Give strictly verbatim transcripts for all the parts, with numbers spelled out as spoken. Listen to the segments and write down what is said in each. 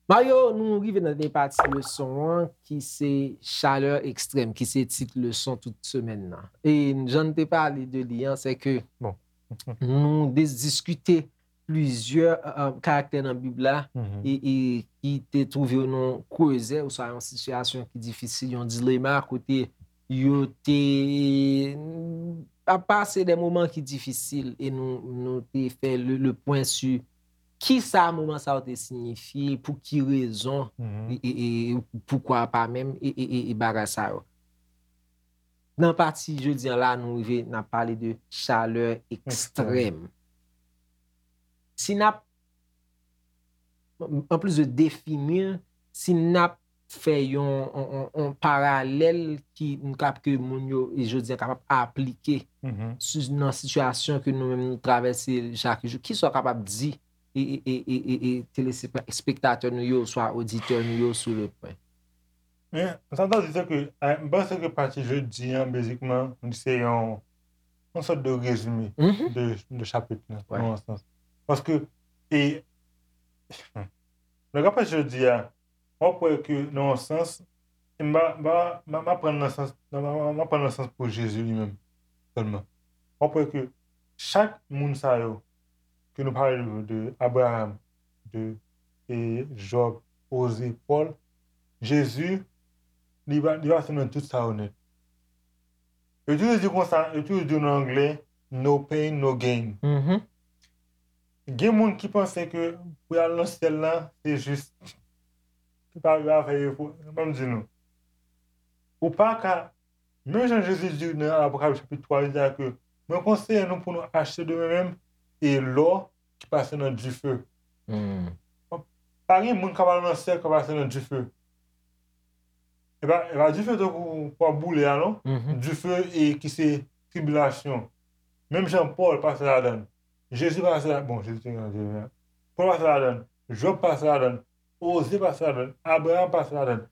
Mario, nou rive nan dènye pati leson an, ki se chaleur extrême, ki se tit leson tout semèn nan. E jan n te pale de li an, se ke Bon. Nou des- diskite plizyè euh, karaktè nan Bib la Mhm. e, e ki te twouve yo nan krezè oswa yon sitiyasyon ki difisil, yon dilema kote yo te ap pase de moman ki difisil e nou, nou te fè le, le pwen sou ki sa moman sa yo te siyifi, pou ki rezon Mhm. e, e, e poukwa pa menm e, e, e, e bagay sa yo. Nan pati jodi an la, nou rive n ap pale de chaleur extrême. Si n ap, anplis de defini, si n ap fè yon, yon, yon, yon paralèl ki n kap ke moun yo e jodi an kapab aplike Mhm. sou, nan sitiyasyon ke nou menm nou travèse chak jou, kisa w kapab di e, e, e, e, e, e telespektatè nou yo, swa oditè nou yo sou le pwen? Men, sa m ta di se ke, eh, m panse ke pati jodi an, bezikman, se yon, yon sòt de rezime Mhm. de, de chapit la, Ouais. nan yon sans. Paske, e, lè w ap pati jodi a, w ap wè ke, nan yon sans, e m pa, m pa, m pa, m pa pran nan sans, m pa, m pa pran nan sans pou Jezi li menm, sèlman. W ap wè ke chak moun sa yo, ke nou pale de, de Abraham, de e Jòb, Oze, Pòl, Jezi, li pa, li pase nan tout sa yo nèt. Yo toujou di konsa, yo toujou di nan anglè, no pain, no gain. Mhm. Gen moun ki panse ke pou y al nan syèl la, se jis, se pa yo a fè efò. Ban m di nou. Ou pa ka, menm jan Jezi di nan Apokalips chapit twa, li di a ke, mwen konseye nou pou nou achte de mwen menm e lò ki pase nan dife. Hmm. Pa gen moun k ap al nan syèl k ap pase nan dife. E pa, e pa dife tankou pou ap boule a, non. Mhm. Dife e ki se tribilasyon. Menm jan Pòl pase ladan. Jezi pase ladan. Bon, Jezi te gen Pòl pase ladan. Jòb pase ladan. Oze pase ladan. Abraham pase ladan.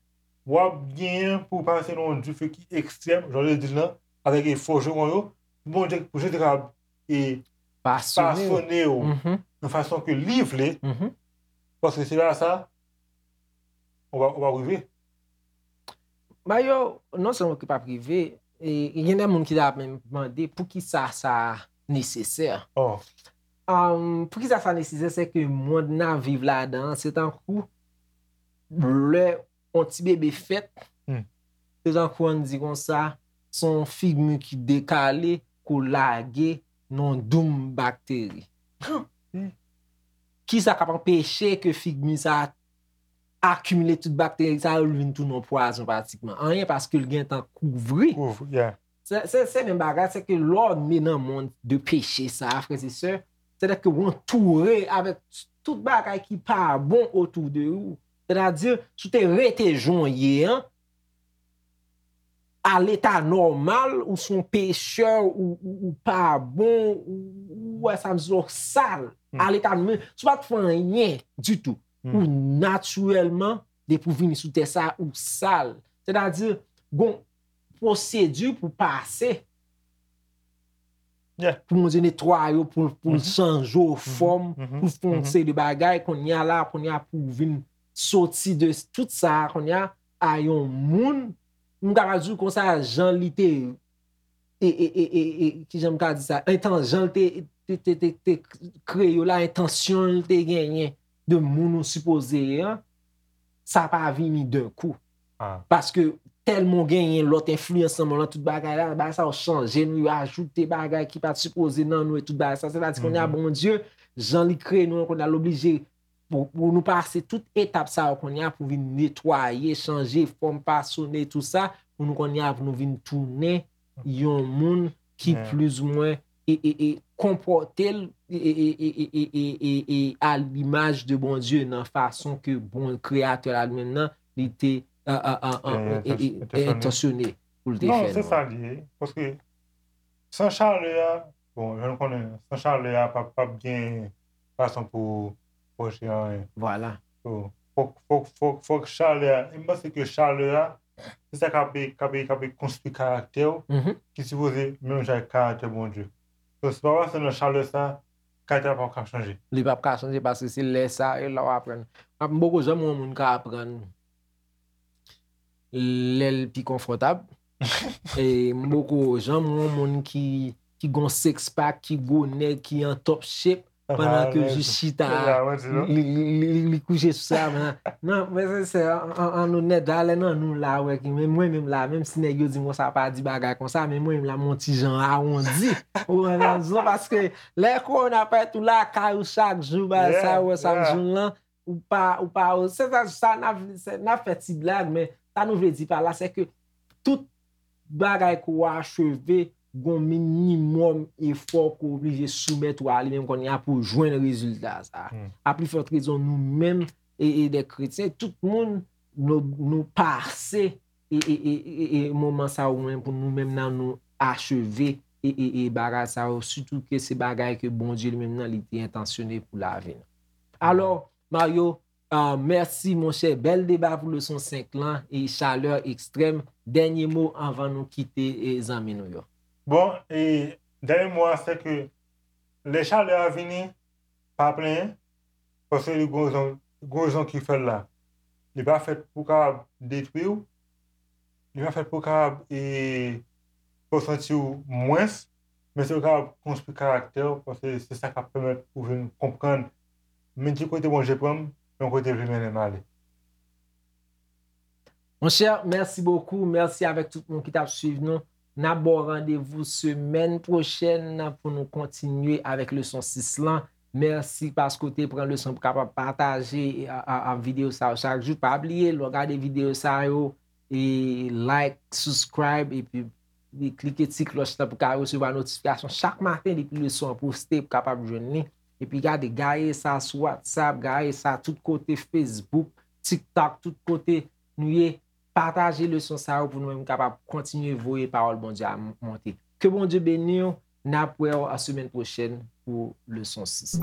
W ap genyen pou w pase nan yon dife ki ekstrèm, jan w te di l lan, avèk e fòjewon yo, pou Bondye, pou Jezi kapab e Pasone. pasone w Mhm. nan fason ke li vle, Mhm. paske se pa sa, ou pa, ou pa rive. Mario, non sèlman ki p ap rive, e, e gen de moun ki ta menm mande poukisa sa nesesè. Oh. Um, poukisa sa nesesè, se ke mond n ap viv ladan an, se tankou lè yon ti bebe fèt, Hmm. se tankou ann di konsa, se yon figmi ki dekale, ke w lage nan yon doum bakteri. Hmm. Kisa k ap anpeche ke figmi sa akimile tout bakteri sa yo, li vin tounen yon pwazon pratikman? Anyen, paske l gentan kouvri. Kouvri, yeah. Se, se, se menm bagay, se ke lè w ne nan mond de peche sa, frè e sè, sètadi ke w antoure avèk tout bagay ki pa bon otou de ou. Sètadi, si w te rete jan w ye an, a leta nòmal, ou se yon pechè, ou, ou, ou pa bon, ou, ou wè sa m di w sal. Hmm. A leta nòmal, si w pa t fè anyen ditou, Hmm. ou natirèlman, depi w vini sou tè sa, ou sal. Sètadi, gon pwosedi pou pase, Yeah. pou Bondye netwaye w, pou, pou l Mhm. chanje w fòm, Mhm. pou l fè yon Mhm. seri de bagay, kounye a la, kounye a pou w vin soti de tout sa, kounye a, a yon moun, m kapab di w konsa, jan li te, e, e, e, e, e, kijan m ka di sa, entan-, jan l te, te, te, te, te kreye w la, entansyon l te genyen de moun ou sipoze ye an, sa pa vini d'un coup. Ah. Paske tèlman w genyen lòt enfliyans nan mond lan, tout bagay la, bagay sa yo chanje nou, yo ajoute bagay ki pa t sipoze nan nou e tout bagay sa. Sètadi kounye a, Mhm. Bondye, jan li kreye nou an, kounye a l oblije pou, pou nou pase tout etap sa yo kounye a pou vin netwaye, chanje fòm, fasone, tout sa, pou nou kounye a, pou nou vin tounen yon moun ki Yeah. plizoumwen e, e, e konpòte l e, e, e, e, e, e, e, e a limaj de Bondye nan fason ke bon kreyatè la li menm nan, li te, a, a, a, a, Yeah, e, e, e, entansyonnen. Entansyonnen pou l te Non, fè se nou. Sa li ye. Paske san chalè a, bon, jan nou konnen, san chalè a, p ap, p ap gen fason pou pwoche anyen. Vwala. So, fòk, fòk, fòk, fòk chalè a. E m panse ke chalè a, se sa k ap, k ap, k ap konstwi karaktè w, Mhm. ki sipoze menm jan ak karaktè Bondye. So, se pa paske nan chalè sa, karaktè a p ap ka chanje. Li p ap ka chanje paske se lè sa, e la w aprann. M poko janm wè yon moun ka aprann lè l pi konfòtab. E m poko janm wè yon moun ki, ki gon six pack, ki gwo nèg, ki an top shape, pandan ke jis chita, li, li, li, li kouche sou sa, men, non, men se, se, an, an, an onèt, valè nan nou la, wè, ki, men mwen menm la, menm si nèg yo di m konsa, pa di bagay konsa, men mwen menm la, m on ti jan awondi. Ou konprann sa, paske lè kowona fèt ou lakay ou chak jou, bagay sa, ou wè sa m di w lan, ou pa, ou pa, se sa, sa n ap, se, n ap fè ti blag, men sa nou vle di pa la, se ke tout bagay ke w acheve, gon minimòm efò ke w oblije soumèt ou a li menm kounye a pou w jwenn rezilta sa. A pli fòt rezon nou menm, e, e de kretyen, tout moun nou, nou pase e, e, e, e, e moman sa yo menm pou nou menm nan nou acheve e, e, e bagay sa yo, sitou ke se bagay ke Bondye li menm nan li te entansyone pou lavi nou. Alò, Mario, ah, mèsi monchè, bèl deba pou leson senk lan e chalè ekstrèm. Dènye mo anvan nou kite e zanmi nou yo. Bon, e dènye mo a se ke lè chalè a vini, pa plenyen, paske li gon rezon, gon rezon ki fè l la. Li pa fèt pou kapab detwi w, li pa fèt pou kapab e, fè w santi w mwens, men se pou kapab konstwi karaktè w, paske se sa k ap pèmèt ou vin konprann men ki kote Bondye pran m, men kote l vle mennen m ale. Monchè, mèsi bokou. Mèsi avèk tout moun ki t ap swiv nou. N ap ba w randevou semèn pwochèn pou nou kontinye avèk leson sis lan. Mèsi paske w te pran leson pou kapab pataje a, a, a videyo sa yo chak jou. Pa bliye, lè w gade videyo sa yo, e like, subscribe, epi e klike ti klòch lan pou ka resevwa notifikasyon chak maten depi leson an poste pou kapab jwenn li. Epi gade, gaye sa sou WhatsApp, gaye sa tout kote, Facebook, TikTok, tout kote nou ye. Pataje leson sa yo pou nou menm kapab kontinye voye pawòl Bondye a m-, monte. Ke Bondye beni w. N ap wè w a semèn pwochèn pou leson sis.